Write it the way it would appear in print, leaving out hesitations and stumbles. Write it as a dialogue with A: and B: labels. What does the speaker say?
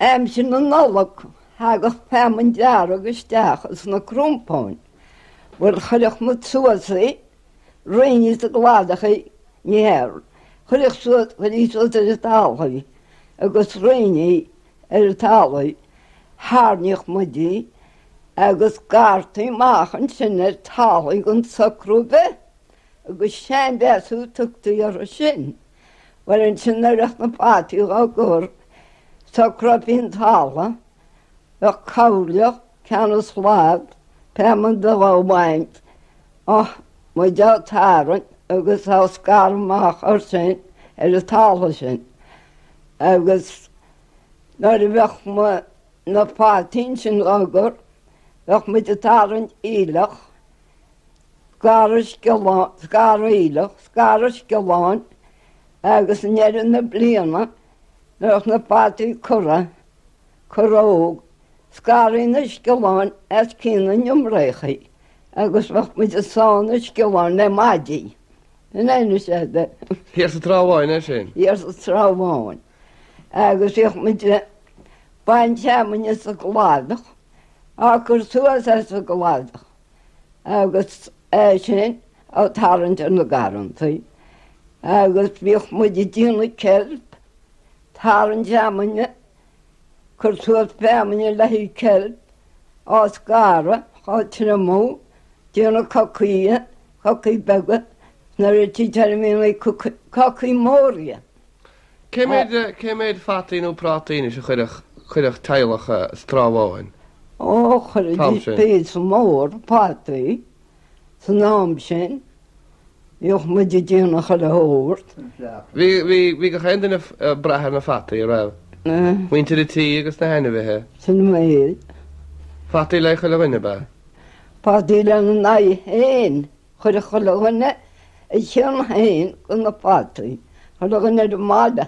A: Aimsir na Nollag thagadh feamainn dearg isteach ins na crompáin. Bhuel chuirfeadh muid suas í, roinnfí sa gcladach í, ní hea, chuirfeadh suas, chuirfí suas ar an talamh í agus roinnfí ar an talamh í, thairníodh muid í agus scartaí amach ansin ar talamh í gan socrú ar bith. Agus seanmheasú tugtaí orthu sin. Bhuel ansin nuair a bheadh na fataí dhá gcur, socrófaí an talamh, bheadh cabhairleach, ceann an slad, feamainn a bheith á bhaint, á, muid á tarraingt agus á scaradh amach air sin, ar an talamh sin. Agus nuair a bheadh na fataí ansin dhá gcur, bheadh muid ag tarraingt aoileach, Scaradh sciolláin, scaradh aoileach, scaradh sciolláin agus i ndeireadh na bliana nuair a bheadh na fataí curtha, curtha óg, scarfaí na sciolláin as cinn na n-iomréachaí agus bheadh muid ag sá na sciolláin le maidí. In ainm is ea de.
B: Thiar sa Trá Bháin é sin?
A: Thiar sa Trá Bháin. Agus bhíodh muid ag baint feamainne sa gcladach, á cur suas as an gcladach. agus é sin á tarraingt ar na garrantaí agus bhíodh muid ag déanamh ceilp, tarraingt feamainne, cur suas feamainne le haghaidh ceilp, á scaradh, á triomú, déanamh cocaí, cocaí beaga, nuair a tchítear a mbíonn cocaí móra.
B: Cé méid, cé méid fataí nó prátaí anois a chuirfeadh, chuirfeadh teaghlach sa Trá Bháin?
A: Ó, chuiridís píosa mór fataí san am sin. Bhíodh muid ag déanamh chuile shórt.
B: Bhí, bhí, bhí gach aon duine ag brath ar na fataí, a raibh? Muintir an tí agus na hainmhithe.
A: Sin an méid.
B: Fataí le chuile dhuine, ab ea?
A: Fataí lena n-aghaidh féin. Chuireadh chuile dhuine a chion féin de na fataí, chuile dhuine ar an mbaile.